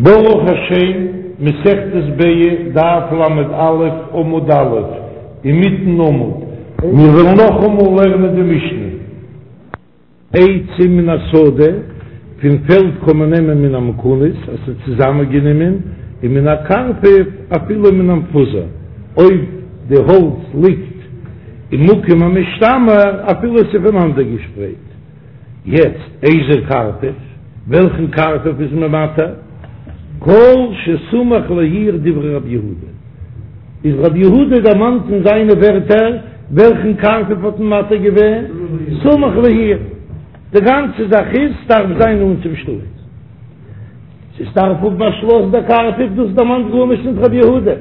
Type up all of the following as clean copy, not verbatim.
ברוך השם, מסכת ביצה, דף ל"א, עמוד א', אינמיטן עמוד. מיר וועלן נאכאמאל לערנען די משנה. עצים מן השדה, פון פעלד קען מען נעמען מן המכונס, אז ס'איז צוזאמענגענומען, און מן הקרפף אפילו מן המפוזר, אויב די האלץ ליגט אין מקום המשתמר אפילו עס איז פונאנדערגעשפרייט. יעצט איזהו קרפף, וועלכן קרפף איז מען מתיר? כל שסמוך לעיר דברי רבי יהודה, איז רבי יהודה דערמאנט אין זיינע ווערטער וועלכן קרפף האט מען מתיר געווען? סמוך לעיר, די גאנצע זאך איז ס'דארף זיין נאנט צום שטאט. ס'דארף האבן א שלאס דער קרפף, דאס דערמאנט גארנישט נישט רבי יהודה.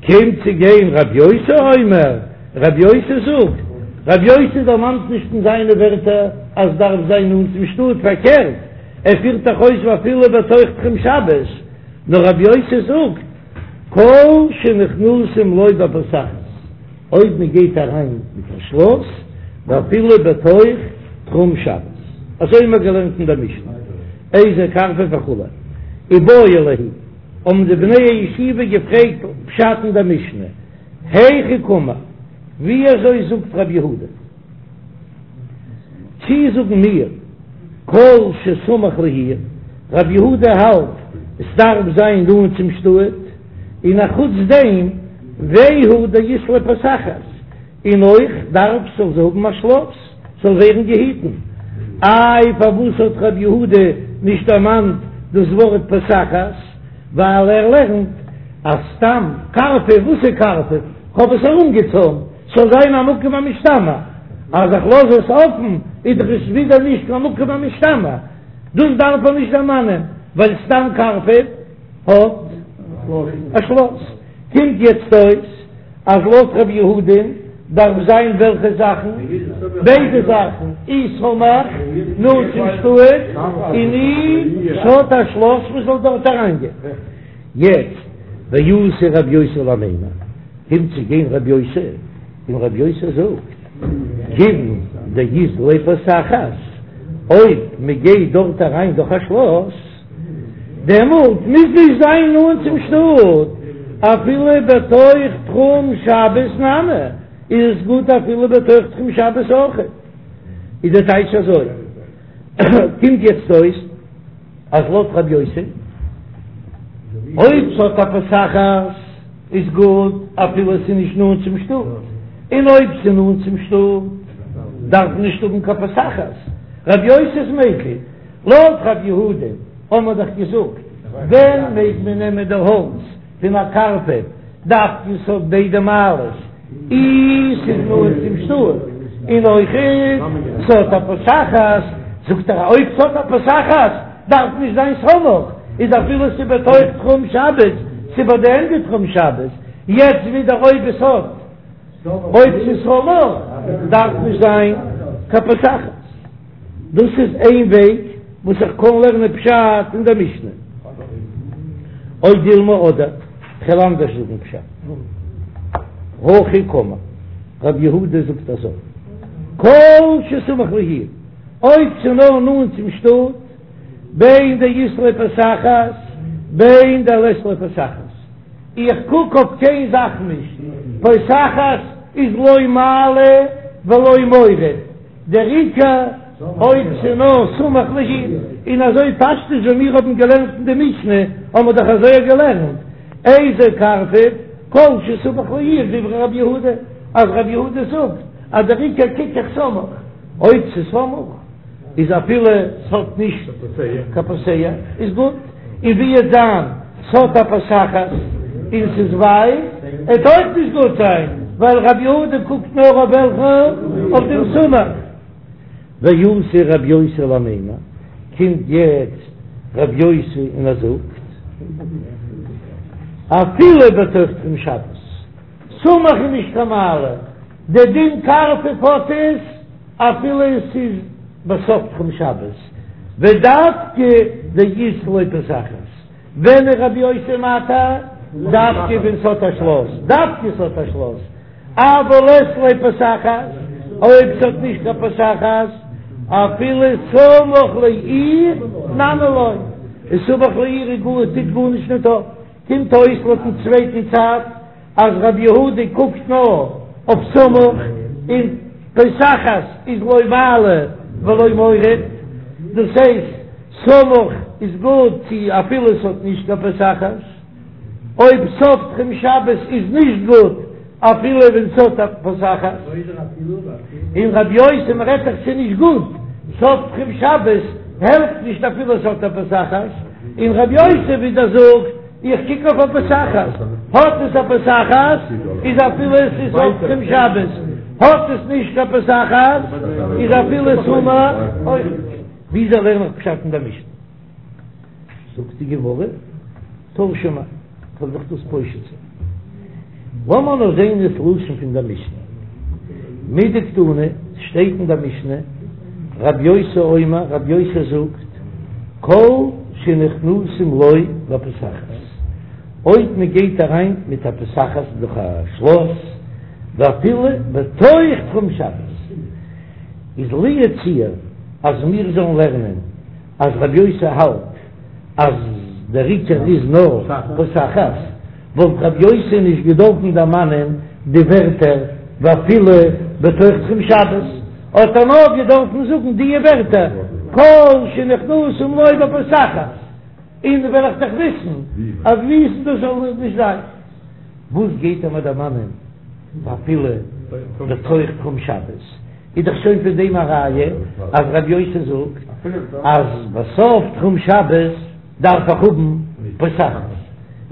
קומט צו גיין רבי יוסי אומר, רבי יוסי זאגט, רבי יוסי דערמאנט נישט אין זיינע ווערטער אז דארף זיין נאנט צום שטאט, פארקערט ער פירט דאך אויס ואפילו בתוך תחום שבת, נאר רבי יוסי זאגט כל שנכנסים לו בפותחת, אויב מען גייט אריין מיט א שלאס, ואפילו בתוך תחום שבת, אזוי האבן מיר געלערנט אין דער משנה, איזהו קרפף וכו', איבעיא להו, האבן די בני הישיבה געפרעגט פשט אין דער משנה, היכי קאמר, ווי אזוי זאגט רבי יהודה? צי זאגן מיר כל שסמוך לעיר, רבי יהודה האלט עס דארף זיין נאנט צום שטאט, און א חוץ דעם והוא דאית ליה פותחת, און אויך דארף ס'זאל זי האבן א שלאס, ס'זאל ווערן געהיטן. איי פארוואס האט רבי יהודה נישט דערמאנט דאס ווארט פותחת? ווייל ער לערנט אז סתם קרפף, וואס איז קרפף? כ'האב עס ארומגעצוימט ס'זאל זיין א מקום המשתמר, אז איך לאז עס אפן איז דאך עס ווידער נישט קיין מקום המשתמר, דאס דארף ער נישט דערמאנען ווייל סתם קרפף האט א שלאס. קומט יעצט אויס אז לויט ר' יהודה'ן דארף זיין וועלכע זאכן? ביידע זאכן, אי סמוך נאנט צום שטאט, און אי ס'האט א שלאס מ'זאל דארט אריינגיין. יעצט ואתא רב יוסי למימר, קומט צו גיין רב יוסי, און רב יוסי זאגט, כיוון דאית ליה פותחת, אויב מ'גייט דארט אריין דורך א שלאס, דעמאלט מוז נישט זיין נאנט צום שטאט, אפילו בתוך תחום שבת נמי, איז עס גוט אפילו בתוך תחום שבת אויך. איז דער טייטש אזוי, קומט יעצט אויס אז לויט רבי יוסי, אויב ס'האט א פותחת איז גוט אפילו ס'איז נישט נאנט צום שטאט, און אויב ס'איז נאנט צום שטאט דארף מען נישט האבן קיין פותחת, רבי יוסי איז מיקל. לויט רב יהודה האבן מיר דאך געזאגט, ווען מעג מען נעמען די האלץ פון א קרפף, דווקא ס'האט ביידע מעלות, אי ס'איז נאנט צום שטאט, און אויכעט ס'האט א פותחת, זאגט ער אויב ס'האט א פותחת דארף נישט זיין סמוך, איז אפילו ס'איז בתוך תחום שבת, ס'איז ביי די ענדע תחום שבת, יעצט ווידער אויב עס האט אויב ס'איז סמוך דארף נישט זיין קיין פותחת. דאס איז איין וועג וואס איך קען לערנען פשט אין דער משנה. או דילמא אדער כ'וועל אנדערש זאגן פשט. הכי קאמר, רב יהודה זאגט אזוי, כל שסמוך לעיר, אויב ס'איז נאר נאנט צום שטאט, בין דאית ליה פותחת, בין דלית ליה פותחת. איך קוק אויף קיין זאך נישט, פותחת איז לא מעלה ולא מוריד. דער עיקר אויב ס'נאר סמוך לעיר, און אזוי פשטות ווי מיר האבן געלערנט אין די משנה האבן מיר דאך אזוי געלערנט, איזהו קרפף כל שסמוך לעיר דברי רבי יהודה, אז רבי יהודה זאגט אז דער עיקר קוק איך סמוך, אויב ס'סמוך איז אפילו ס'האט נישט קיין פותח איז גוט, און ווי עט זיין ס'האט א פותחת און ס'איז ווייט עט אויך נישט גוט זיין ווייל רבי יהודה קוקט נאר אויף וועלכע אויף דעם סמוך. ואתא רבי יוסי למימר, קומט יעצט רבי יוסי און ער זאגט אפילו בתוך תחום שבת, סמוך איז נישט קיין מעלה, די דין קרפף האט עס אפילו עס איז בסוף תחום שבת, ודווקא דאית ליה פותחת, ווען איז רבי יוסי מתיר? דווקא ווען ס'האט א שלאס, דווקא ס'האט א שלאס, אבל לית ליה פותחת, אויב ס'האט נישט קיין פותחת, אפילו סמוך לעיר נמי לא. און סמוך לעיר איז גאר טוט גארנישט ניט אויף. קומט אויס לויטן צווייטן צד אז רבי יהודה קוקט נאר אויף סמוך און פותחת איז לא מעלה ולא מוריד, דאס הייסט סמוך איז גוט צו אפילו עס האט נישט קיין פותחת, אויב סוף תחום שבת איז נישט גוט אפילו ווען ס'האט א פותחת, און רבי יוסי מ'רעדט דאך ס'איז נישט גוט, סוף תחום שבת העלפט נישט אפילו ס'האט א פותחת, און רבי יוסי ווידער זאגט איך קוק אויף א פותחת, האט עס א פותחת איז אפילו עס איז סוף תחום שבת, האט עס נישט קיין פותחת איז אפילו סמוך אויך נישט. וויאזוי לערן איך פשט אין דער משנה? זאגט די גמרא, תא שמע, כ'וועל דיך דאס פושט זיין. לאמיר נאר זען דאס לשון פון דער משנה. מדקתני, ס'שטייט אין דער משנה, רב יוסי אומר, רב יוסי זאגט, כל שנכנסים לו בפותחת, אויב מען גייט אריין מיט א פותחת דורך א שלאס, ואפילו בתוך תחום שבת, איז לו יצוייר אז מיר זאלן לערנען אז רבי יוסי האלט אז דער עיקר איז נאר פותחת, וואלט רבי יוסי נישט געדארפן דערמאנען די ווערטער ואפילו בתוך תחום שבת, האט ער נאר געדארפן זאגן די ווערטער כל שנכנסים לו בפותחת, און וועל איך דאך וויסן אז וויסן דאס זאל נישט זיין. וואס גייט ער מיר דערמאנען ואפילו בתוך תחום שבת? איז דאך שוין פון דעם א ראיה אז רבי יוסי זאגט אז בסוף תחום שבת דארף איך האבן פותחת,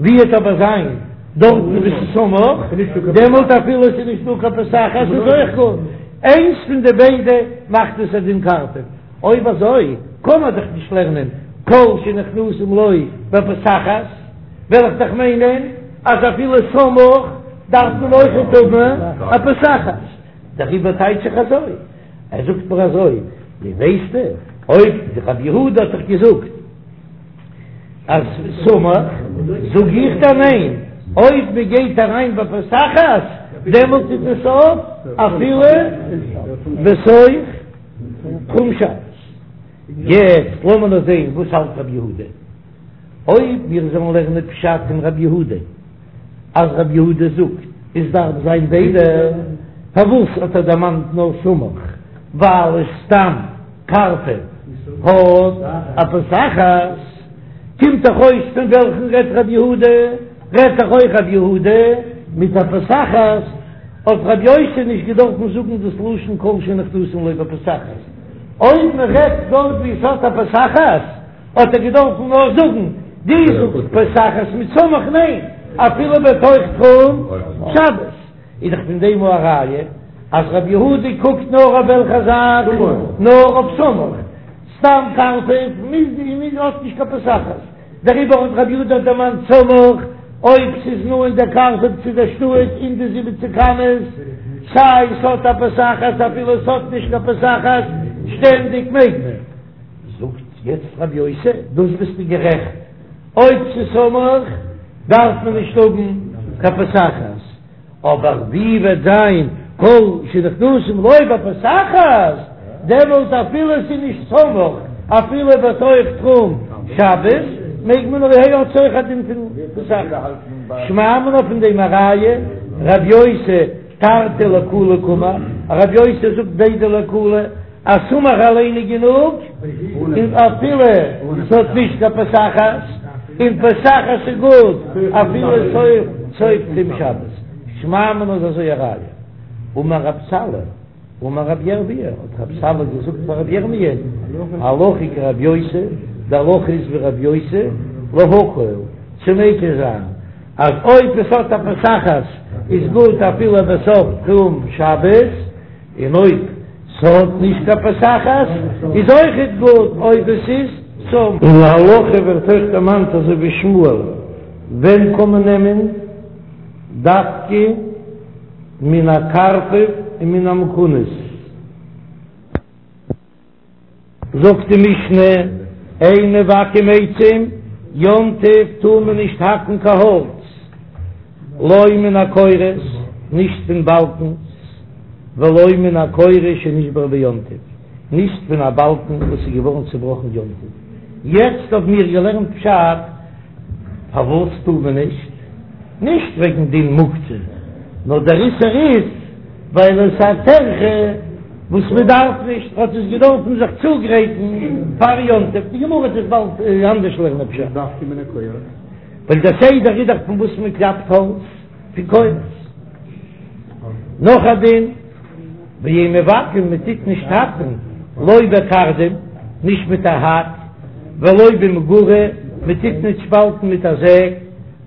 ווי וועט אבער זיין דארטן וואו ס'איז סמוך, דעמאלט אפילו עס איז נישט דא קיין פותחת איז אויך גוט, איינס פון די ביידע מאכט עס א דין קרפף, אויב אזוי קען מען דאך נישט לערנען כל שנכנסים לו בפותחת, וועל איך דאך מיינען אז אפילו סמוך דארף מען אויכעט האבן א פותחת. דעריבער טייטש איך אזוי, ער זאגט מיר אזוי, דו ווייסט אויב רבי יהודה האט דאך געזאגט אז סמוך, זאג איך דיר ניין, אויב מען גייט אריין בפותחת דעמאלט איז עס אויף אפילו בתוך תחום שבת. יעצט לאמיר נאר זען וואס האלט רבי יהודה. אויב מיר זאלן לערנען פשט אין רבי יהודה אז רבי יהודה זאגט עס דארף זיין ביידע, פארוואס האט ער דערמאנט נאר סמוך? ווייל עס סתם קרפף האט א פותחת. קומט דאך אויס פון וועלכן רעדט רבי יהודה? רעדט דאך אויך רבי יהודה מיט א פותחת, האט רבי יוסי נישט געדארפן זאגן דאס לשון כל שנכנסין לו בפותחת. אויב מען רעדט דארט ווי עס האט א פותחת, האט ער געדארפן נאר זאגן דו זאגסט פותחת מיט סמוך ניין אפילו בתוך תחום שבת איז דאך פון דעם א ראיה אז רבי יהודה קוקט נאר אויף וועלכע זאך נאר אויף סמוך סתם קרפף מוז מוז האט נישט קיין פותחת דעריבער האט רבי יהודה דערמאנט סמוך אויב ס'איז נאנט דער קרפף צו דער שטאט אין די זיבעציק אמות סיי ס'האט א פותחת אפילו ס'האט נישט קיין פותחת שטענדיג מעג מען. זאגט יעצט רבי יוסי, דאס ביסטו גערעכט, אויב ס'איז סמוך דארף מען נישט האבן קיין פותחת, אבער ווי וועט זיין כל שנכנסים לו בפותחת, דעמאלט אפילו ס'איז נישט סמוך, אפילו בתוך תחום שבת, מעג מען אויך האט אויך א דין פון פותחת. שמע מינה פון דעם א ראיה, רבי יוסי תרתי לקולא קאמר, רבי יוסי זאגט ביידע לקולא, אז סמוך אליין איז גענוג, און אפילו ס'האט נישט קיין פותחת, און פותחת איז גוט אפילו סוף תחום שבת. שמע מינה איז אזוי א ראיה. אמר רב סלא, אמר רב ירמי', האט רב סלא געזאגט פאר רב ירמי', הלכה כרב יוסי, די הלכה איז ווי רב יוסי, להקל, צו מיקל זיין, אז אויב עס האט א פותחת איז גוט אפילו בסוף תחום שבת, און אויב ס'האט נישט קיין פותחת איז אויכעט גוט אויב עס איז סמוך. אין להלכה ווערט אויך דערמאנט אזוי ווי שמואל, ווען קען מען נעמען דווקא מן הקרפף און מן המכונס? זאגט די משנה, אין מבקעים עצים, יום טוב טאר מען נישט האקן קיין האלץ, לא מן הקורות, נישט פון באלקנס, ולא מן הקורה שנשברה ביום טוב, נישט פון א באלקן וואס איז געווארן צובראכן יום טוב. יעצט האבן מיר געלערנט פשט פארוואס טאר מען נישט, נישט וועגן דין מוקצה, נאר דער איסור איז ווייל עס איז א טרחה וואס מען דארף נישט, האט עס געדארפן זיך צוגרייטן פאר יום טוב, די גמרא וועט עס באלד אנדערש לערנען פשט. ווייל דער סדר איז דאך פון וואס מען קלאפט האלץ, פון קורות. נאך א דין, ואין מבקעין, מען טוט נישט האקן, לא בקרדום, נישט מיט א האק, ולא במגרה, מען טוט נישט שפאלטן מיט א זעג,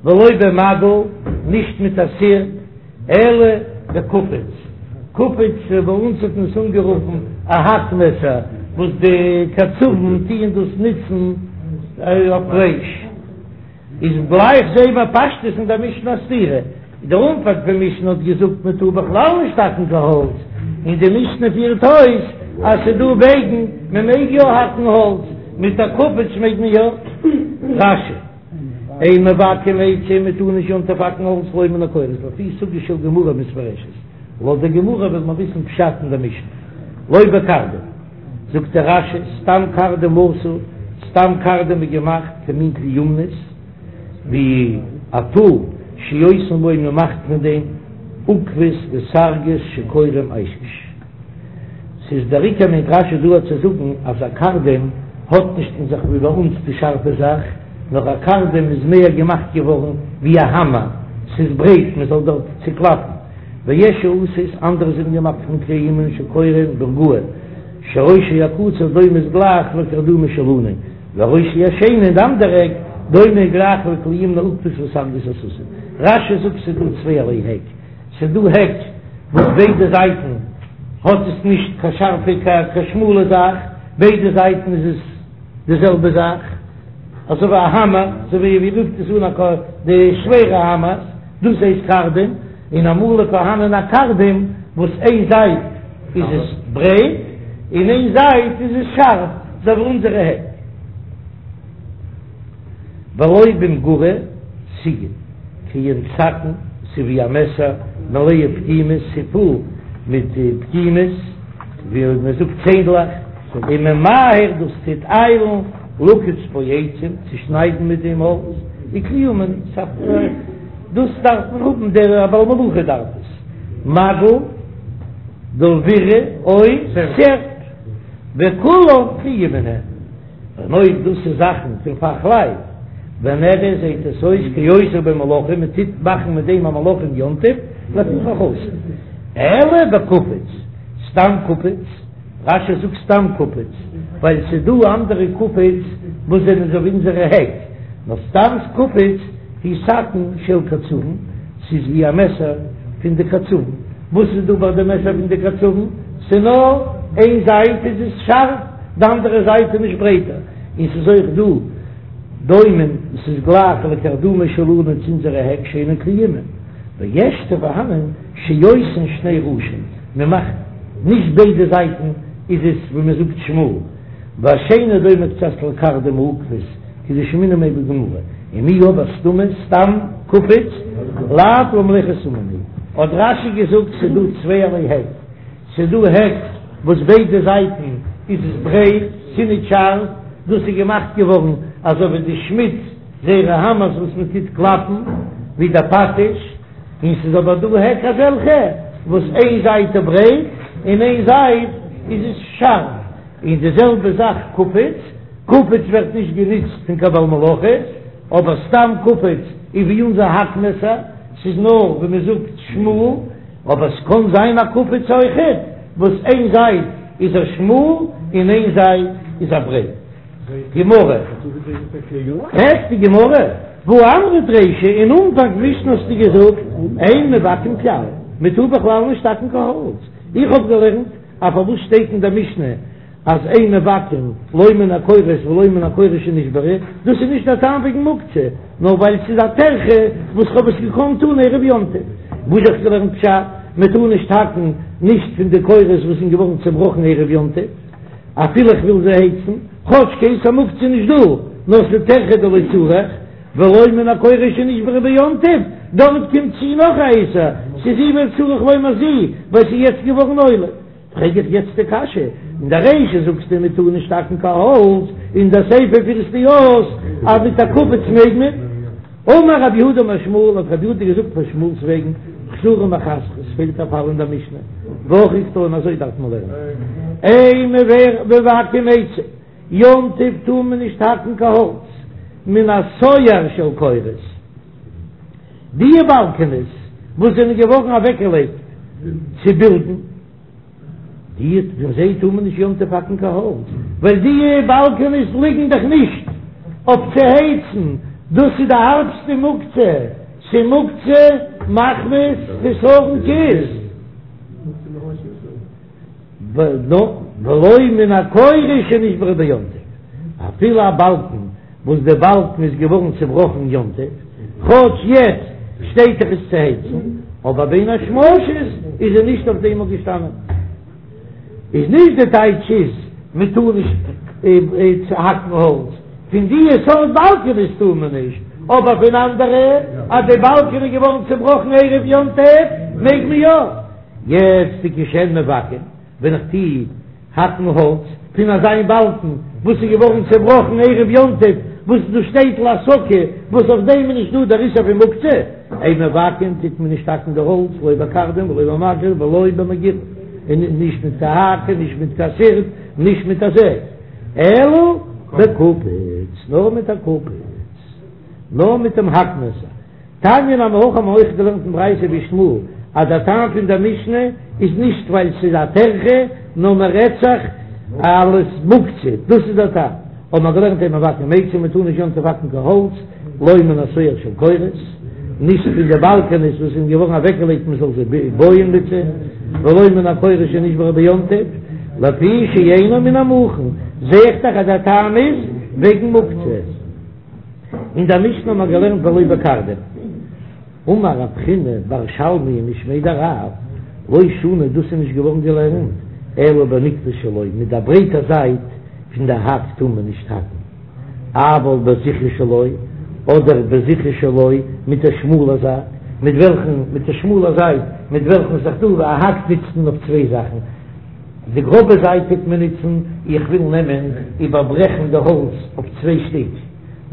ולא במגל, נישט מיט א סירפ, אלא בקופיץ, קופיץ ביי אונז האט מען עס אנגערופן א האק מעסער, וואס די קצבים טוען דאס נוצן אויף פלייש. איז גלייך זעהן מיר פשטות אין דער משנה א סתירה, דער אנפאנג פון משנה האט געזאגט מען טאר בכלל נישט האקן קיין האלץ, און די משנה פירט אויס אז ס'איז דא וועגן מען מעג יא האקן האלץ, מיט א קופיץ מעג מען יא. רש"י, אין מבקעין עצים מען טאר נישט יום טוב האקן האלץ לא מן הקורות לפי סוגיא של גמרא מתפרשת, לויט די גמרא וויל מען וויסן פשט אין דער משנה, לא בקרדום. זאגט דער רש"י, סתם קרדום עשוי, סתם קרדום איז געמאכט כמין כלי אומנות, ווי א טול שעושין בו מען מאכט פון דעם עוקבות וסרגות שקורין איישש. ס'איז דער עיקר מיינט רש"י דא צו זאגן אז א קרדום האט נישט אין זיך ווי ביי אונז די שארפע זאך, נאר א קרדום איז מער געמאכט געווארן ווי א האמער, ס'איז ברייט מען זאל דארט צוקלאפן. ויש שעשוי, אנדערע זענען געמאכט פון כלי אומן שקורין ברגאי, שראשו הקצר דומה איז גלייך לקרדומא שלנו, וראשו השני און די אנדערע עק דומה גלייך לכלי אומני עוקבות וסרגות הסוסים. רש"י זאגט ס'איז דא צווייערליי העק, ס'איז דא העק וואס ביידע זייטן האט עס נישט קיין שארפע קיין שמאלע זאך, ביידע זייטן איז עס די זעלבע זאך, אזוי ווי א האמער, אזוי ווי ווי רופט עס אן א די שווערע האמערס, דאס הייסט קרדום, און אמאל איז פארהאנען א קרדום וואס איין זייט איז עס ברייט און איין זייט איז עס שארף, אזוי ווי אונזערע העק. ולא במגרה סיגן כעין סכין, ס'איז ווי א מעסער, מלאה פגימות, ס'איז פול מיט פגימות, ווי מען זאגט צענדלעך, וממהר דאס טוט איילן, לקוץ בו עצים, צו שניידן מיט דעם האלץ, וכלי אומן, דאס דארף מען האבן, דער בעל מלאכה דארף עס, מגל, דלווירא, או סערפ, וכולן כלי אומן הן. און אויב דאס איז זאכן פון פאכלייט, ונראה זעהט עס אויס כעושה בו מלאכה, מען טוט מאכן מיט דעם א מלאכה אין יום טוב, לפיכך אסור. אלא בקופיץ, סתם קופיץ, רש"י זאגט סתם קופיץ, ווייל ס'איז דא אנדערע קופיץ וואס זענען אזוי ווי אונזערע העק, נאר סתם קופיץ הוא סכין של קצבים, ס'איז ווי א מעסער פון די קצבים, וואס איז דא ביי די מעסער פון די קצבים? ס'נאר איין זייט איז עס שארף, די אנדערע זייט איז נישט ברייטער, און ס'איז אויך דא דומים, ס'איז גלייך לקרדומא שלנו צו אונזערע העק שאינן כלי אומן, ויש ס'איז פארהאנען שעושין שני ראשים, מ'מאכט נישט ביידע זייטן איז עס ווי מ'זאגט שמאל, והשני דומה קצת לקרדום העוקבות כדשמעינן ביה בגמרא, ומיהו אבער סתמא סתם קופיץ לאו למלאכת אומן הוא, האט רש"י געזאגט ס'איז דא צווייערליי העק. ס'איז דא העק וואס ביידע זייטן איז עס ברייט, ס'איז נישט שארף, דאס איז געמאכט געווארן אזוי ווי די שמיד זייערע האמערס וואס מען טוט קלאפן ווי די פטיש, און ס'איז אבער דא העק אזעלכע וואס איין זייט איז ברייט און איין זייט איז עס שארף, און די זעלבע זאך קופיץ, קופיץ ווערט נישט גענוצט פון קיין בעל מלאכות, אבער סתם קופיץ איז ווי אונזער האק מעסער, ס'איז נאר ווי מען זאגט שמאל. אבער ס'קען זיין א קופיץ אויכעט וואס איין זייט איז ער שמאל און איין זייט איז ער ברייט. גמרא. פרעגט די גמרא, והא אמרת רישא, אין אנפאנג משנה האסטו געזאגט אין מבקעין כלל, מ'טאר בכלל נישט האקן קיין האלץ, איך האב געלערנט אז פארוואס שטייט אין דער משנה אז אין מבקעין לא מן הקורות ולא מן הקורה שנשברה, דאס איז נישט א טעם וועגן מוקצה, נאר ווייל ס'איז א טרחה וואס כ'האב עס געקאנט טון ערב יום טוב. וואס האב איך געלערנט פשט, מען טאר נישט האקן נישט פון די קורות וואס זענען געווארן צעבראכן ערב יום טוב, אפילו איך וויל זיי הייצן, כאטש קיין איסור מוקצה איז נישט דא, נאר ס'איז טרחה דלא צריך, ולא מן הקורה שנשברה ביום טוב, דארט קומט צו נאך א איסור, ס'איז זו וצריך לומר זו, ווייל ס'איז יעצט געווארן עולה. פרעג איך יעצט די קשיא, אין דער רישא זאגסטו מען טאר נישט האקן קיין האלץ, אין דער סיפא פירסטו אויס אז מיט א קופיץ מעג מען. אמר רב יהודה אמר שמואל, האט רב יהודה געזאגט פון שמואל'ס וועגן, חסורי מחסרא, עס פעלט א פאל אין דער משנה, והכי קתני אזוי דארף מען לערנען, אין מבקעים עצים, יום טוב טאר מען נישט האקן קיין האלץ, מן הסואר של קורות, די באלקענעס וואס זענען געווארן אוועקגעלייגט צו בילדן. די פון זיי טאר מען נישט יום טוב האקן קיין האלץ, ווייל די באלקענעס ליגן דאך נישט אויף צו הייצן, דאס איז די הארבסטע מוקצה, ס'מוקצה מחמת חסרון כיס. ולא מן הקורה שנשברה ביום טוב, אפילו א באלקן וואס די באלקן איז געווארן צובראכן יום טוב, כאטש יעצט שטייט דאך עס צו הייצן, אבער בין השמשות איז ער נישט אויף דעם געשטאנען. איז נישט די טייטש איז מען טאר נישט האקן האלץ, פון די סארט באלקענעס טאר מען נישט, אבער פון אנדערע אז די באלקען איז געווארן צובראכן ערב יום טוב מעג מען יא. יעצט וכשהן מבקעין ווען איך טו האקן האלץ פון אזא באלקן וואס איז געווארן צעבראכן ערב יום טוב, וואס דאס שטייט להסקה, וואס אויף דעם איז נישט דא דער איסור פון מוקצה, אין מבקעין טוט מען נישט האקן די האלץ לא בקרדום ולא במגל ולא במגרף, און נישט מיט קיין האק און נישט מיט קיין סערפ, נישט מיט א זעג, אלא בקופיץ, נאר מיט א קופיץ, נאר מיט דעם האקמעסער. תניא נמי הכי האבן מיר אויך געלערנט אין ברייתא ווי שמואל אז דער טעם פון דער משנה איז נישט ווייל ס'איז א טרחה נאר מען רעדט זיך אלס מוקצה דאס איז דער טעם האבן מיר געלערנט אין מבקעין עצים מען טאר נישט יום טוב האקן קיין האלץ לא מן הסואר של קורות נישט פון די באלקענעס וואס זענען געווארן אוועקגעלייגט מען זאל זיי בויען מיט זיי ולא מן הקורה שנשברה ביום טוב לפי שאינו מן המוכן זעה איך דאך אז דער טעם איז וועגן מוקצה. אין דער משנה האט מען געלערנט ולא בקרדום. אמר רב חיננא בר שלמיא משמיה דרב, לא שנו דאס איז נישט געווארן געלערנט אלא בנקבה שלו, מיט דער ברייטער זייט פון דער האק טאר מען נישט האקן, אבל בזכרית שלו, אדער בזכרית שלו מיט דער שמאלער זייט, מיט וועלכן, מיט דער שמאלער זייט, מיט וועלכן ס'איז דא א האק נוצט מען אויף צוויי זאכן, די גראבע זייט טוט מען נוצן, איך וויל נעמען איבערברעכן די האלץ אויף צוויי שטיק,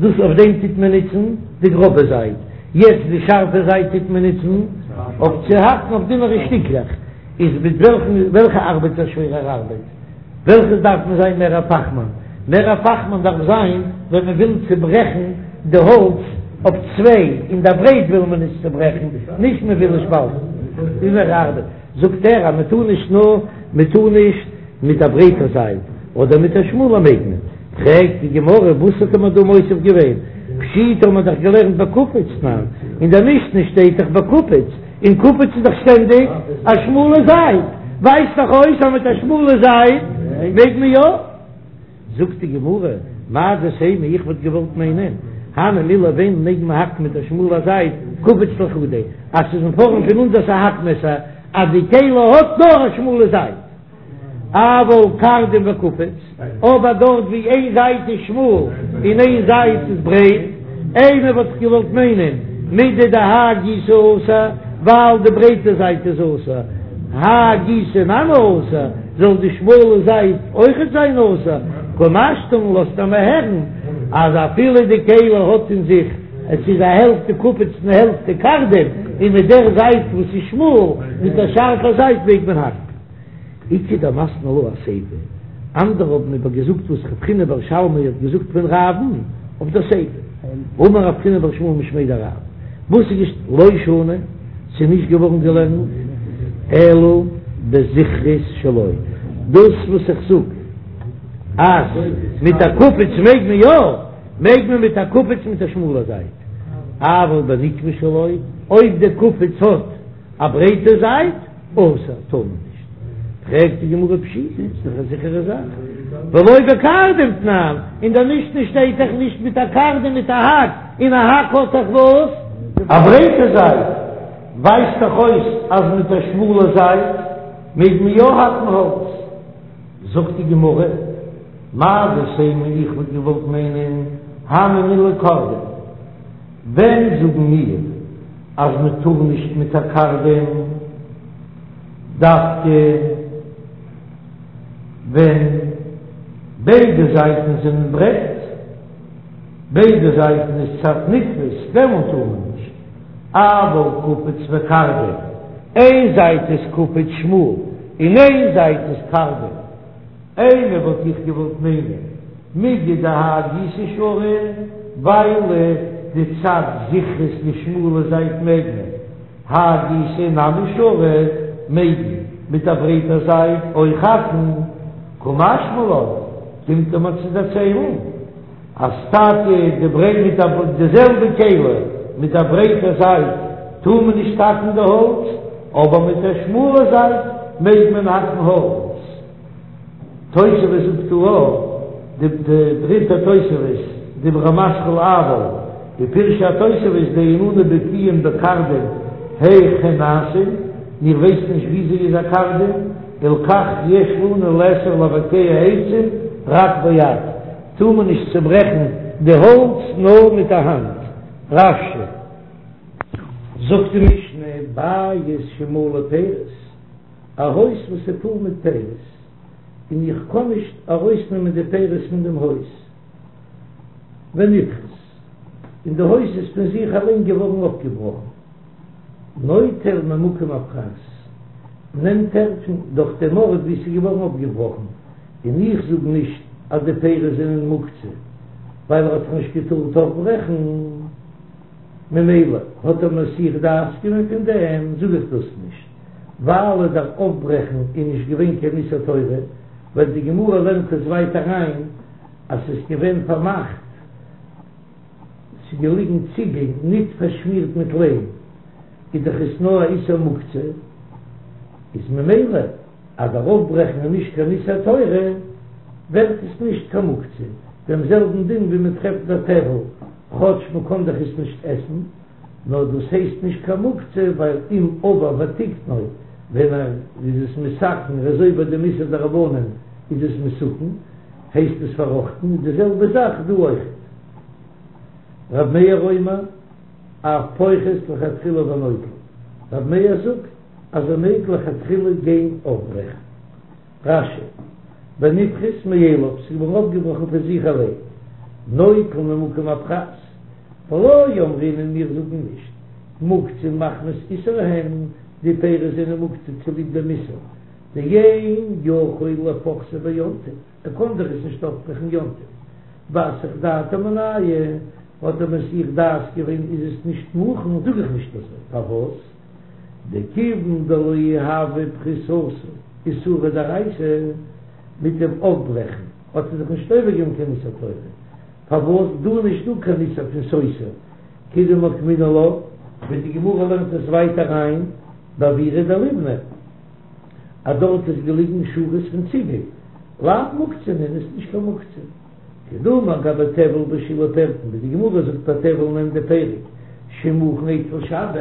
דאס אויף דעם טוט מען נוצן די גראבע זייט, יעצט די שארפע זייט טוט מען נוצן אויף צו האקן אויף דינערע שטיקלעך, איז מיט וועלכן וועלכע ארבעט איז א שווערער ארבעט? וועלכעס דארף מען זיין מער א פאכמאן? מער א פאכמאן דארף זיין ווען מען וויל צוברעכן די האלץ אויף צוויי, אין דער ברייט וויל מען עס צוברעכן, נישט מען וויל עס שפאלטן, איז מער ארבעט. זאגט ער אז מען טאר נישט נאר מען טאר נישט מיט א ברייטע זייט אדער מיט א שמאלע מעג מען, פרעגט די גמרא וואס האט מען דא מוסיף געווען, פשיטא האט מען דאך געלערנט בקופיץ תנן, אין דער משנה שטייט דאך בקופיץ, און קופיץ איז דאך שטענדיג א שמאלע זייט, ווייזט דאך אויס אז מיט א שמאלע זייט מעג מען יא. זאגט די גמרא, מהו דתימא, איך וואלט געוואלט מיינען, הני מילי ווען מעג מען האקן מיט א שמאלע זייט, קופיץ לחודיה, אז ס'איז אין פארעם פון אונזערס א האקמעסער, אז די כלי האט נאר א שמאלע זייט, אבל קרדום וקופיץ, אבער דארט ווי איין זייט איז שמאל און איין זייט איז ברייט, אימא וואלט איך געוואלט מיינען, מידי דהאי גיסא אסור, ווייל די ברייטע זייט איז אסור, האי גיסא נמי אסור, זאל די שמאלע זייט אויכעט זיין אסור, קא משמע לן לאזט ער מיר הערן אז אפילו די כלי האט אין זיך, עס איז א העלפט קופיץ און העלפט קרדום, און מיט דער זייט וואס איז שמאל, מיט דער שארפע זייט מעג מען האקן. איכא דמתני לה אסיפא, אנדערע האבן איבער געזאגט וואס רב חיננא בר שלמיא האט געזאגט פון רב'ן אויף דער סיפא, אמר רב חיננא בר שמואל משמיה דרב, וואס איז געש לא שנו, ס'איז נישט געווארן געלערנט אלא בזכרית שלו, דאס וואס איך זאג אז מיט א קופיץ מעג מען יא, מעג מען מיט א קופיץ מיט א שמאלע זייט, אבל בנקבה שלו, אויב די קופיץ האט א ברייטע זייט, אסור, טאר מען נישט. פרעגט די גמרא פשיטא, איז דאך א זיכערע זאך, ולא בקרדום תנן, אין דער משנה שטייט דאך נישט מיט א קרדום מיט א האק, און א האק האט דאך וואס? א ברייטע זייט, ווייזט דאך אויס אז מיט א שמאלע זייט מעג מען יא האקן האלץ. זאגט די גמרא, מהו דתימא איך וואלט געוואלט מיינען הני מילי קרדום, ווען זאגן מיר אז מען טאר נישט מיט א קרדום דווקא? ווען ביידע זייטן זענען ברייט, ביידע זייטן איז צד נתפס, דעמאלט טאר מען נישט, אבל קופץ וקרדום, איין זייט איז קופץ שמאל און איין זייט איז קרדום, אימא וואלט איך געוואלט מיינען מיגו דהאי גיסא שרי, ווייל די צד זכרות די שמאלע זייט מעג מען, האי גיסא נמי שרי מעג מען מיט א ברייטע זייט אויך האקן, קא משמע לן קומט ער מיר צו דערציילן אז טאקע די ברייט מיט א די זעלבע כלי מיט א ברייטע זייט טאר מען נישט האקן די האלץ, אבער מיט א שמאלע זייט מעג מען האקן האלץ. תוספות זאגט דא אויך די דריטע תוספות, דיבור המתחיל אבל, ופירשו התוספות דאין אנו בקיאים בקרדום היאך הן נעשין, מיר ווייסן נישט וויאזוי איז א קרדום, הלכך יש לנו לאסור לבקע עצים רק ביד, טאר מען נישט צוברעכן די האלץ נאר מיט א האנט. רש"י. זאגט די משנה, בית שמלא פירות. א הויז וואס איז פול מיט פירות, און איך קען נישט ארויסנעמען די פירות פון דעם הויז, ונפחת, און די הויז איז פון זיך אליין געווארן אויפגעבראכן, נוטל ממקום הפחת, נעמט ער פון דורך דעם ארט וואו ס'איז געווארן אויפגעבראכן, און איך זאג נישט אז די פירות זענען מוקצה, ווייל ער האט דאך נישט געטארט אויפברעכן, ממילא האט ער מסיח דעת געווען פון דעם, זאג איך דאס נישט. ווייל דער אויפברעכן איז נישט געווען קיין איסור תורה, ווייל די גמרא לערנט עס ווייטער אריין אז ס'איז געווען פארמאכט, ס'איז געליגן ציגל ניט פארשמירט מיט ליים, איז דאך עס נאר א איסור מוקצה, איז ממילא אז דער אויפברעכן איז נישט קיין איסור תורה, ווערט עס נישט קיין מוקצה, דעם זעלבן דין ווי מען טרעפט ביי טבל, כאטש מען קען דאך עס נישט עסן. נאר דאס הייסט נישט קיין מוקצה ווייל אם עבר ותיקנו ווען ער איז עס מתקן ער איז עובר דעם איסור דרבנן איז עס מתוקן הייסט עס פארראכטן איז די זעלבע זאך דא אויכעט. רב מאיר אומר אף פוחת לכתחילה ונוטל רב מאיר זאגט אז ער מעג לכתחילה גיין אויפברעכן. רש"י, ונפחת מאליו, ס'איז געווארן אויפגעבראכן פון זיך אליין, נוטל ממקום הפחת, ולא אמרינן מיר זאגן נישט, מוקצין מחמת איסור הן, די פירות זענען מוקצה צוליב דעם איסור, דאין יכול לפוחתו ביום טוב, ער קען דאך עס נישט אויפברעכן יום טוב, ואסח דעתיה מינייהו, האט ער מסיח דעת געווען איז עס נישט מוכן, זאג איך נישט אזוי, פארוואס? דכיון דלא הוה פחיתתו איסורא דאורייתא, מיט דעם אויפברעכן האט ער זיך נישט עובר געווען קיין איסור תורה, פארוואס דא נישט דא קיין איסור פון סותר כדמוקמינן לה, ווי די גמרא לערנט עס ווייטער אריין באוירא דליבני אז דארט איז געליגן שורות פון ציגל, לאו מוקצה נינהו איז נישט קיין מוקצה. כדאמר גבי טבל בשילהי פירקין, ווי די גמרא זאגט ביי טבל אין ענדע פרק, שמוכן אצל שבת,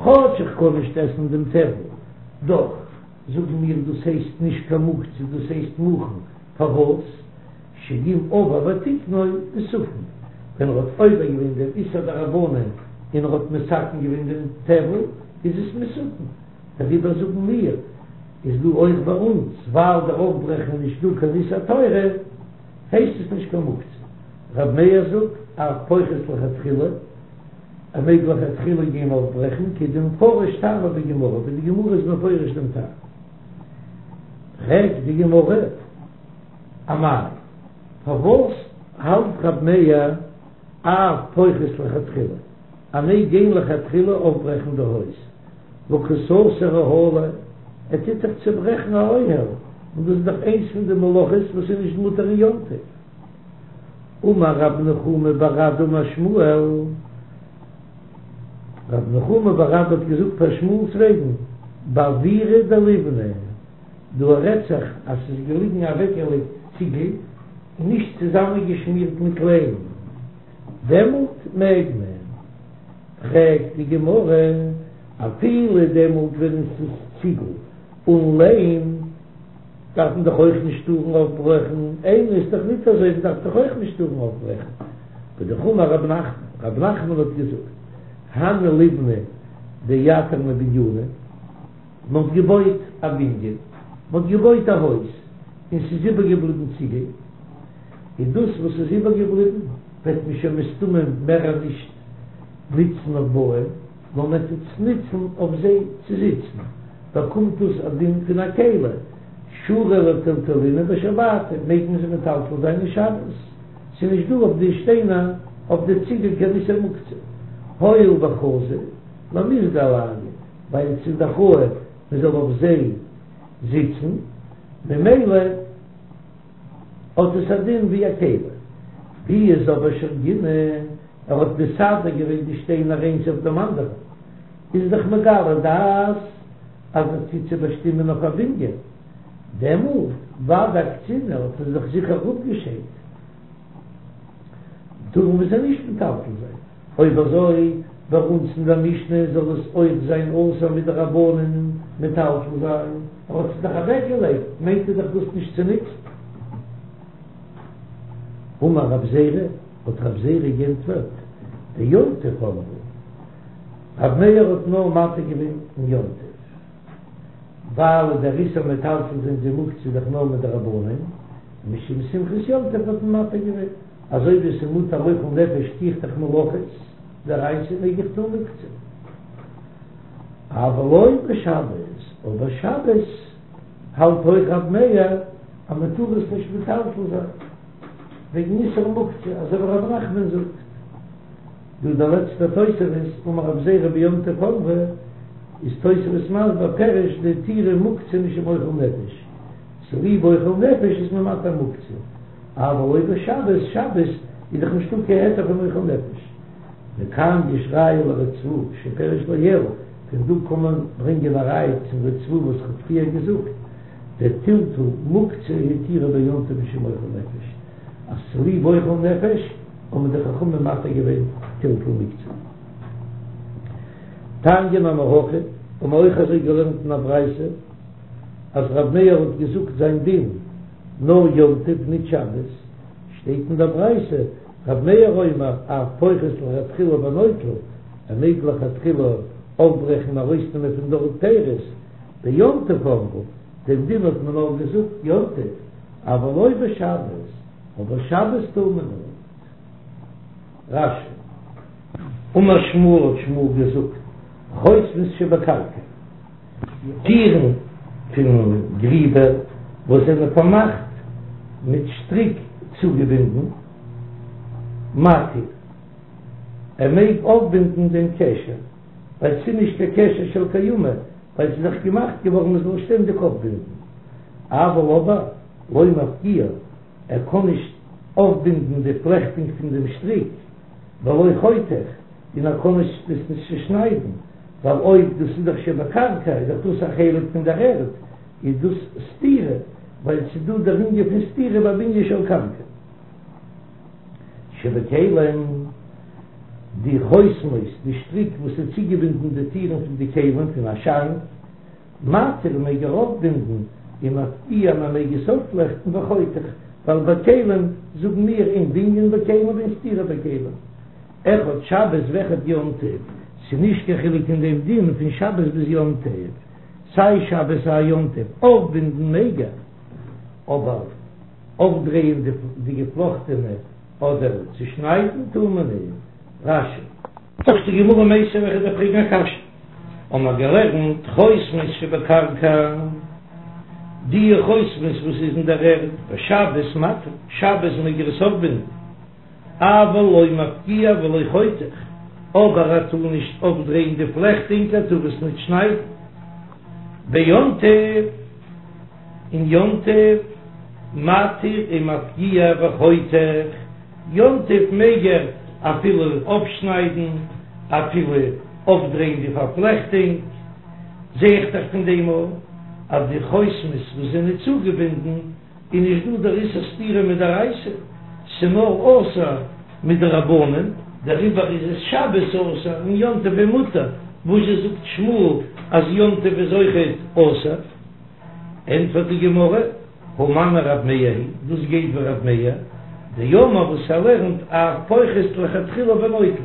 כאטש איך קען נישט עסן דעם טבל, דאך זאגן מיר דאס הייסט נישט קיין מוקצה דאס הייסט מוכן, פארוואס? שאם עבר ותיקנו מתוקן, ווען ער האט עובר געווען דעם איסור דרבנן און ער האט מתקן געווען דעם טבל איז עס מתוקן, דעריבער זאגן מיר איז דא אויך ביי אונז ווייל דער אויפברעכן איז נישט דא קיין איסור תורה הייסט עס נישט קיין מוקצה. ר' מאיר זאגט אף פוחת לכתחילה ער מעג לכתחילה גיין אויפברעכן כדמפרש טעמא בגמרא ווי די גמרא איז מפרש דעם טעם. פרעגט די גמרא אמאי פארוואס האלט ר' מאיר אף פוחת לכתחילה ער מעג גיין לכתחילה אויפברעכן די הויז? והא קא סתר אוהלא, ער טוט דאך צוברעכן א אוהל, און דאס איז דאך איינס פון די מלאכות וואס איז נישט מותר אין יום טוב. אמר רב נחומי בר אדא אמר שמואל, רב נחומי בר אדא האט געזאגט פאר שמואל'ס וועגן, באוירא דליבני, דא רעדט זיך אז ס'איז געליגן אוועקגעלייגט ציגל און נישט צוזאמענגעשמירט מיט ליים, דעמאלט מעג מען. פרעגט די גמרא, אפילו דעמאלט ווען עס איז ציגל און ליים דארף מען דאך אויך נישט טארן אויפברעכן, איני איז דאך ניט אזוי, מען דארף דאך אויך נישט טארן אויפברעכן. והאמר רב נחמן, רב נחמן האט געזאגט, הני ליבני דאייתרנא בניינא, מען האט געבויט א בנין, מען האט געבויט א הויז. און ס'איז איבערגעבליבן ציגל, און דאס וואס איז איבערגעבליבן וועט מען שוין מסתמא מער נישט נוצן אויף בויען, נאר מען וועט עס נוצן אויף זיי צו זיצן, באקומט דאס א דין פון א כלי, שרי לטלטולינהו בשבתא, מעג מען זיי מטלטל זיין אין שבת, ס'איז נישט דא אויף די שטיינער אויף די ציגל קיין איסור מוקצה, הואיל וחזי למיזגא עלייהו, ווייל ס'איז דאך ראוי מען זאל אויף זיי זיצן, ממילא האט עס א דין ווי א כלי. ווי איז אבער שרגינהו, ער האט מסדר געווען די שטיינער איינס אויף דעם אנדערן, איז דאך מגלה דעת אז ער טוט זיי באשטימען אויף א בנין, דעמאלט ודאי אקצינהו האט ער זיך זיכער אפגעשיידט, טאר מען זיי נישט מטלטל זיין. אויב אזוי ביי אונז אין דער משנה זאל עס אויך זיין אסור מדרבנן מטלטל זיין, ער האט עס דאך אוועק געלייגט מיינט ער דאך דאס נישט צו נוצן. אמר רב זירא, האט רב זירא גענטפערט, ביום טוב אמרו, רב מאיר האט נאר מתיר געווען אין יום טוב, ווייל דער איסור מטלטל זיין די מוקצה איז דאך נאר מדרבנן, משום שמחת יום טוב האט מען מתיר געווען. אזוי ווי עס איז מותר אוכל נפש טו איך דאך מלאכות דאורייתא מעג איך טון מוקצה. אבל לא בשבת, אבער שבת האלט אויך רב מאיר אז מען טאר עס נישט מטלטל זיין וועגן איסור מוקצה, אזוי ווי רב נחמן זאגט. דא דער לעצטער תוספות, אמר רב זירא ביום טוב אמרו, איז תוספות מסביר פירוש דהתירו מוקצה משום אוכל נפש, צוליב אוכל נפש איז מען מתיר מוקצה. אבל לא בשבת, שבת איז דאך נישטא קיין היתר פון אוכל נפש. מכאן יש ראיה לריצב"א שפירש לעיל, פון דא קען מען ברענגען א ראיה צום ריצב"א וואס כ'האב פריער געזאגט, דטלטול מוקצה התירו ביום טוב משום אוכל נפש, אז צוליב אוכל נפש האבן די חכמים מתיר געווען טלטול מוקצה. תניא נמי הכי, האבן מיר אויך אזוי געלערנט אין א ברייתא, אז ר' מאיר האט געזאגט זיין דין נאר יום טוב ניט שבת, שטייט אין דער ברייתא ר' מאיר אומר אף פוחת לכתחילה ונוטל, ער מעג לכתחילה אויפברעכן און ארויסנעמען פון דארט פירות, ביום טוב אמרו, דעם דין האט מען נאר געזאגט יום טוב, אבל לא בשבת, אבער שבת טאר מען ניט. רש"י. אמר שמואל האט שמואל געזאגט, חותמות שבקרקע. טירן פון גריבער וואס זענען פארמאכט מיט שטריק צוגעבינדן, מתיר, ער מעג אויפבינדן דעם קשר, ווייל ס'איז נישט קיין קשר של קיימא, ווייל ס'איז דאך געמאכט געווארן מען זאל שטענדיג אויפבינדן, אבל אבער לא מפקיע, ער קען נישט אויפבינדן די פלעכטונג פון דעם שטריק, ולא חותך, און ער קען נישט עס נישט צושניידן, ווייל אויב דאס איז דאך שבקרקע איז דאך דאס א חלק פון דער ערד, איז דאס סתירה, ווייל ס'איז דא דער ענין פון סתירה ביי בנין של קרקע. שבכלים, די חותמות, די שטריק וואס איז צוגעבינדן די טירן פון די כלים פון א שאנק, מתיר מעג ער אויפבינדן ומפקיע מען מעג עס אויפפלעכטן וחותך, ווייל ביי כלים זאגן מיר אין בנין בכלים ואין סתירה בכלים. אחד שבת ואחד יום טוב, ס'איז נישט קיין חילוק אין דעם דין פון שבת ביז יום טוב, סיי שבת סיי יום טוב, אויפבינדן מעג ער, אבער אויפדרייען די געפלאכטענע אדער צושניידן טאר מען נישט. רש"י. זאגט די גמרא מיתיבי וועל איך דיר פרעגן א קשיא, האבן מיר געלערנט חותמות שבקרקע, די חותמות וואס איז אין דער ערד, בשבת מתיר, שבת מעג ער עס אויפבינדן, אבל לא מפקיע ולא חותך, אבער ער טאר נישט אויפדרייען די פלעכטונג, ער טאר עס נישט שניידן, ביום טוב, אין יום טוב, מתיר ומפקיע וחותך, יום טוב מעג ער אפילו אויפשניידן, אפילו אויפדרייען די פארפלעכטונג, זע איך דאך פון דעם אויך אז די חותמות וואס זענען צוגעבינדן איז נישט דא דער איסור סתירה מדאורייתא, ס'נאר אסור מדרבנן, דעריבער איז עס שבת אסור און יום טוב איז מותר, וואזשע זאגט שמואל אז יום טוב איז אויכעט אסור? ענטפערט די גמרא, הא מני רב מאיר היא, דאס גייט ווי רב מאיר, דאמר וואס ער לערנט אף פוחת לכתחילה ונוטל,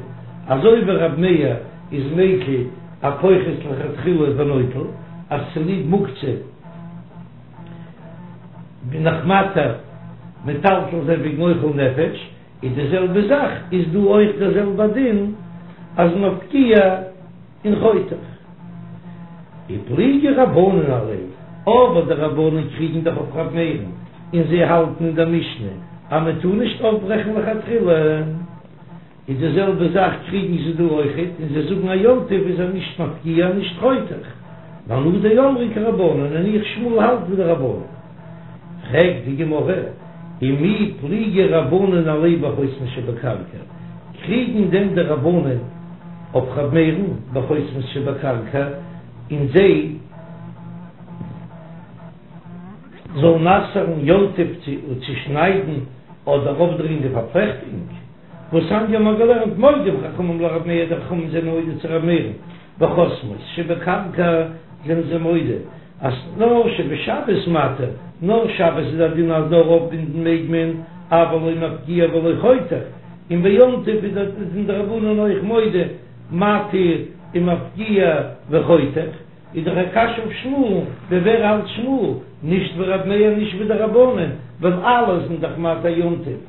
אזוי ווי רב מאיר איז מיקל א פוחת לכתחילה ונוטל, אז צוליב מוקצה. בין איך מתיר מטלטל זיין וועגן אוכל נפש, איז די זעלבע זאך איז דא אויך דער זעלבע דין אז מפקיע און חותך. ופליגי רבנן עליה, אבער די רבנן קריגן דאך אויף ר' מאיר'ן און זיי האלטן אין דער משנה אז מען טאר נישט אויפברעכן לכתחילה. איז די זעלבע זאך קריגן זיי דא אויכעט און זיי זאגן אז יום טוב איז ער נישט מפקיע נישט חותך, ואנא דאמרי כרבנן און איך שמואל האלט ווי די רבנן. פרעגט די גמרא, ומי פליגי רבנן עליה בחותמות שבקרקע, קריגן דען די רבנן אויף ר' מאיר'ן בחותמות שבקרקע און זיי זאלן אסר'ן יום טוב צו שניידן אדער אויפדרייען די פארפלעכטונג? והתניא מ'האט געלערנט מודים חכמים לרב מאיר די חכמים זענען מודה צו רב מאיר'ן בחותמות שבקרקע זענען זיי מודה אז נאר שבשבת מתיר נאר שבת איז א דין אז נאר אויפבינדן מעג מען אבל לא מפקיע ולא חותך און ביום טוב איז זענען די רבנן אויך מודה מתיר ומפקיע וחותך איז דאך א קשיא אויף שמואל, ווי ווער האלט שמואל? נישט ווי רב מאיר נישט ווי די רבנן ווייל אלע זענען דאך מתיר יום טוב.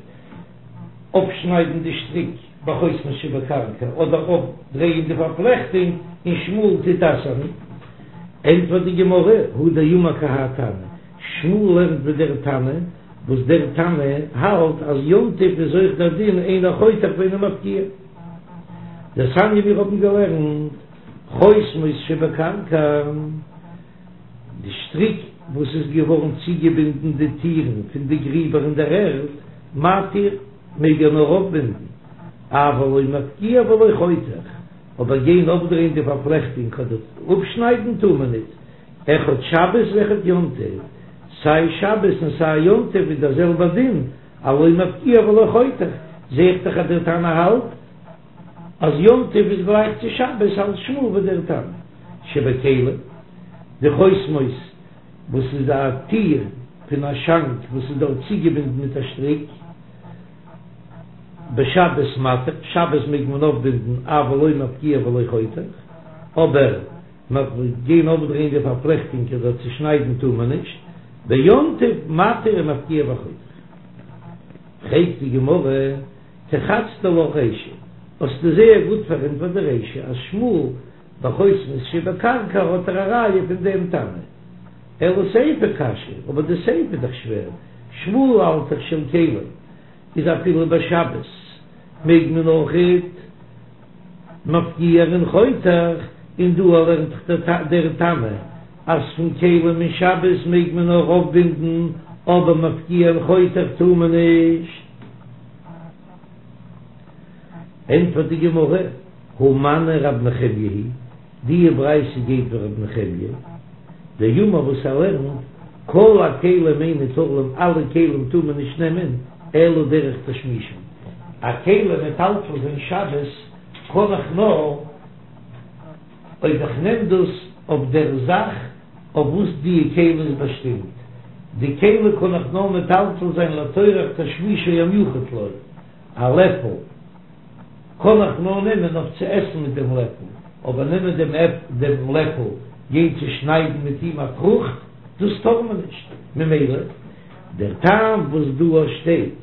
אפשניידן די שטריק בחותמות שבקרקע אדער אויפדרייען די פארפלעכטונג און שמואל טוט אסר'ן, ענטפערט די גמרא, הוא דאמר כי האי תנא, שמואל לערנט ווי דער תנא, וואס דער תנא האלט אז יום טוב איז אויך דער דין אינו חותך ואינו מפקיע. דתניא מיר האבן געלערנט חותמות שבקרקע. די שטריק וואס איז געווארן צוגעבינדן די טירן פון די גריבער אין דער ערד, מתיר, מעג ער נאר אויפבינדן, אבל לא מפקיע ולא חותך, אבער גיין אויפדרייען די פארפלעכטונג אדער אפשניידן טאר מען ניט, אחד שבת ואחד יום טוב, סיי שבת און סיי יום טוב איז דער זעלבער דין, אז לא מפקיע ולא חותך, זע איך דאך אז דער תנא האלט אז יום טוב איז גלייך צו שבת האלט שמואל ווי דער תנא שבכלים, די חותמות וואס איז א טיר פון א שאנק וואס איז דארט צוגעבינדן מיט א שטריק, בשבת מתיר, שבת מעג מען אויפבינדן אבל לא מפקיע ולא חותך, אבער גיין אויפדרייען די פארפלעכטונג אדער צושניידן טאר מען נישט, ביום טוב מתיר ומפקיע וחותך. פרעגט די גמרא. תירצת לך רישא, האסטו זייער גוט פארענטפערט די רישא אז שמואל בחותמות שבקרקע האט ער א ראיה פון דעם תנא. אלא סיפא קשיא, אבער די סיפא איז דאך שווער, שמואל האלט דאך של כלים איז אפילו בשבת מעג מען אויכעט מפקיע און חותך, און דא לערנט דאך דער תנא אז פון כלים אין שבת מעג מען נאר אויפבינדן אבער מפקיע און חותך טאר מען נישט. ענטפערט די גמרא, הא מני רב נחמיה היא, די ברייתא גייט ווי רב נחמיה, דאמר וואס ער לערנט, כל הכלים אין ניטלין אלע כלים טאר מען נישט נעמען, אלא דרך תשמישן, א כלי מטלטל זיין שבת קען איך נאר אויב איך נעם דאס אויף דער זאך אויף וואס די כלי איז באשטימט, די כלי קען איך נאר מטלטל זיין לצורך תשמישו המיוחד לו, א לעפל קען איך נאר נעמען אויף צו עסן מיט דעם לעפל, אבער נעמען דעם דעם לעפל גיין צו שניידן מיט אים א פרוכט, דאס טאר מען נישט, ממילא דער טעם וואס דא שטייט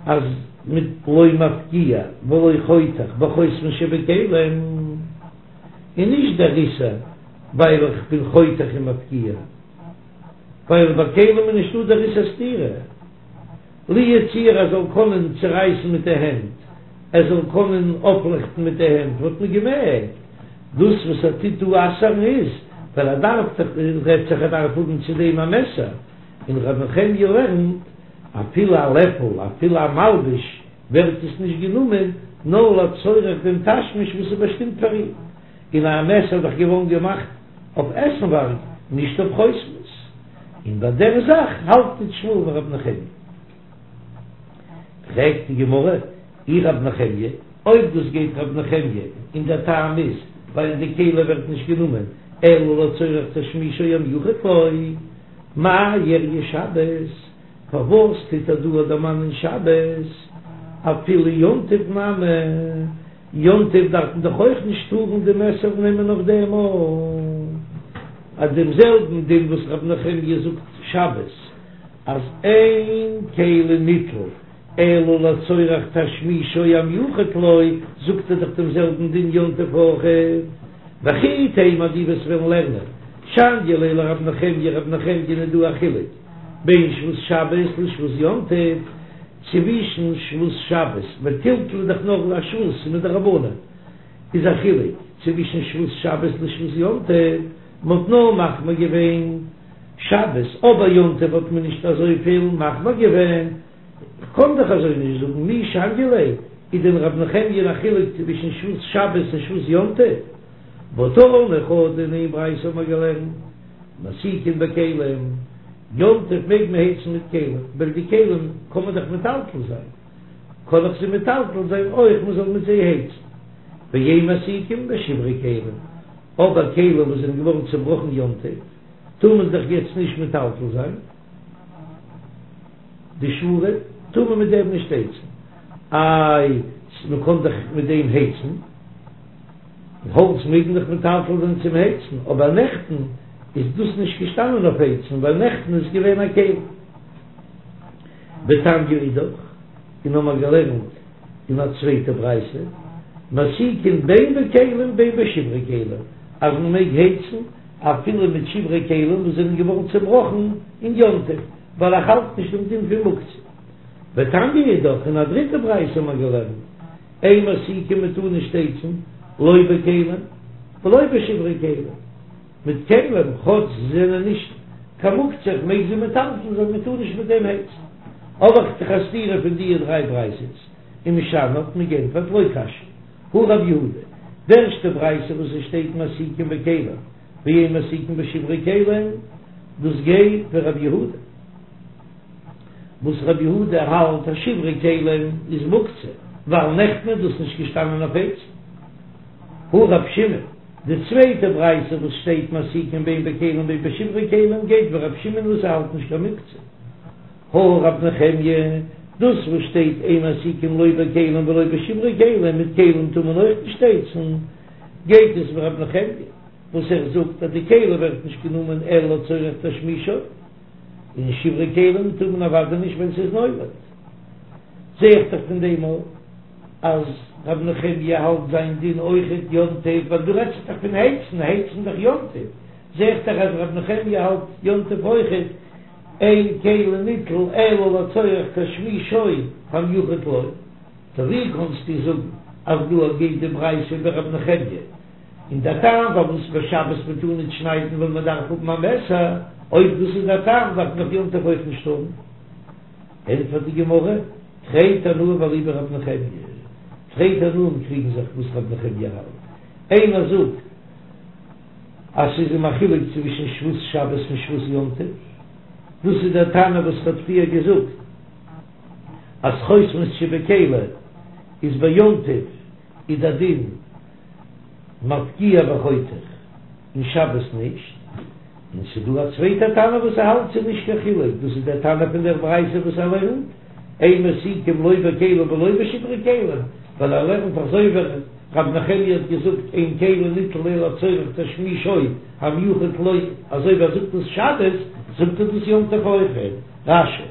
אז מיט לא מפקיע ולא חותך בחותמות שבכלים איז נישט דער איסור ווייל איך בין חותך און מפקיע, ווייל ביי כלים איז נישטא דער איסור סתירה, לו יצוייר ער זאל קענען צורייסן מיט די הענט, ער זאל קענען אויפלעכטן מיט די הענט וואלט מען געמעגט, דאס וואס ער טוט דא אסר'ן איז ווייל ער דארף דאך, רעדט זיך ער דארף האבן צו דעם א מעסער, און ר' נחמיה לערנט אפילו א לעפל אפילו א מלבוש ווערט עס נישט גענומען נאר לצורך דעם תשמיש וואס איז באשטימט פאר אים, און א מעסער איז דאך געווארן געמאכט אויף עסנווארג נישט אויף חותמות, און ביי דער זאך האלט נישט שמואל ווי ר' נחמיה. פרעגט די גמרא, אי ר' נחמיה, אויב דאס גייט ר' נחמיה און דער טעם איז ווייל די כלי ווערט נישט גענומען אלא לצורך תשמישו המיוחד לו, מאי איריא שבת? פארוואס טוט ער דא דערמאנען שבת? אפילו יום טוב נמי, יום טוב דארף מען דאך אויך נישט טארן די מעסער נעמען אויף דעם ארט. אז דעם זעלבן דין וואס ר' נחמיה זאגט שבת. אז אין כלי ניטל אלא לצורך תשמישו המיוחד לו, זאגט ער דאך דעם זעלבן דין יום טוב אויך. וכי תימא דו וועסט וועלן לערנען שניא ליה לרב נחמיה רב נחמיה איז דא א חילוק בין שבות שבת לשבות יום טוב, צווישן שבות שבת ווייל טלטול איז דאך נאר א שבות מדרבנן איז א חילוק צווישן שבות שבת לשבות יום טוב, מ'האט נאר מחמיר געווען שבת אבער יום טוב האט מען נישט אזויפיל מחמיר געווען, כ'קען דאך אזוי נישט זאגן, מי שניא ליה, איז דען רב נחמיה א חילוק צווישן שבות שבת און שבות יום טוב? והא תני חדא אין איין ברייתא האט מען געלערנט, מסיקין בכלים, יום טוב מעג מען הייצן מיט כלים, ווייל די כלים קען מען דאך מטלטל זיין, קען איך זיי מטלטל זיין אויך מען זאל מיט זיי הייצן, ואין מסיקין בשברי כלים, אבער כלים וואס זענען געווארן צובראכן יום טוב, טאר מען דאך יעצט נישט מטלטל זיין. די שבורים טאר מען מיט דעם נישט הייצן, איי מען קען דאך מיט דעם הייצן, האלץ מעג מען דאך מטלטל זיין צום הייצן, אבער נעכטן איז דאס נישט געשטאנען אויף הייצן ווייל נעכטן איז געווען א כלי. ותניא אידך, און האמער געלערנט אין א צווייטע ברייתא, מסיקין בין בכלים בין בשברי כלים, אז מען מעג הייצן אפילו מיט שברי כלים וואס זענען געווארן צעבראכן אין יום טוב, ווייל איך האלט נישט דעם דין פון מוקצה. ותניא אידך, אין א דריטע ברייתא האט מען געלערנט, אין מסיקין מען טאר נישט הייצן, לא בכלים ולא בשברי כלים, מיט כלים כאטש זיי זענען נישט קיין מוקצה, איך מעג זיי מטלטל זיין, מען טאר נישט מיט דעם הייצן. האב איך דאך א סתירה פון די דריי ברייתות, ומשני האט מען געענטפערט לא קשיא. הא רב יהודה, די ערשטע ברייתא וואס עס שטייט מסיקין בכלים ואין מסיקין בשברי כלים, דאס גייט ווי רב יהודה, וואס רב יהודה האלט אז שברי כלים איז מוקצה, ווייל נעכטן איז דאס נישט געשטאנען אויף הייצן. הא רב שמעון, די צווייטע ברייתא וואס שטייט מסיקין בין בכלים בין בשברי כלים גייט ווי רב שמעון וואס ער האלט נישט קיין מוקצה. הא רב נחמיה, דאס וואס שטייט אין מסיקין לא בכלים ולא בשברי כלים, מיט כלים טאר מען אויך נישט הייצן, גייט עס ווי רב נחמיה וואס ער זאגט אז די כלי ווערט נישט גענומען אלא לצורך תשמישו, און שברי כלים טאר מען אוודאי נישט ווען ס'איז נולד. זע איך דאך פון דעם אויך אז רב נחמיה האלט זיין דין אויכעט יום טוב, ווייל דא רעדט זיך דאך פון הייצן, הייצן דאך יום טוב, זע איך דאך אז רב נחמיה האלט יום טוב אויכעט. אין כלי ניטל אלא לצורך תשמישו המיוחד לו, טא ווי קאנסטו זאגן אז דא גייט די ברייתא ווי רב נחמיה, און דער טעם פארוואס ביי שבת מען טאר ניט שניידן ווייל מען דארף האבן א מעסער, אויב דאס איז דער טעם דארף מען דאך יום טוב אויך נישט האבן. ענטפערט די גמרא, תרי תנאי ואליבא דרב נחמיה, תרי תנאים קריגן זיך וואס רב נחמיה האלט, איינער זאגט, אז ס'איז אים א חילוק צווישן שבות שבת און שבות יום טוב, דאס איז דער תנא וואס כ'האב פריער געזאגט אז חותמות שבכלי איז ביי יום טוב איז דער דין מפקיע וחותך און שבת נישט, און ס'איז דא א צווייטע תנא וואס ער האלט ס'איז נישט קיין חילוק, דאס איז דער תנא פון דער ברייתא וואס ער לערנט אין מסיקין לא בכלים ולא בשברי כלים, ווייל ער לערנט אזוי ווי רב נחמיה האט געזאגט אין כלי ניטל אלא לצורך תשמישו המיוחד לו, אזוי ווי ער זאגט דאס שבת, זאגט ער דאס יום טוב אויכעט. רש"י.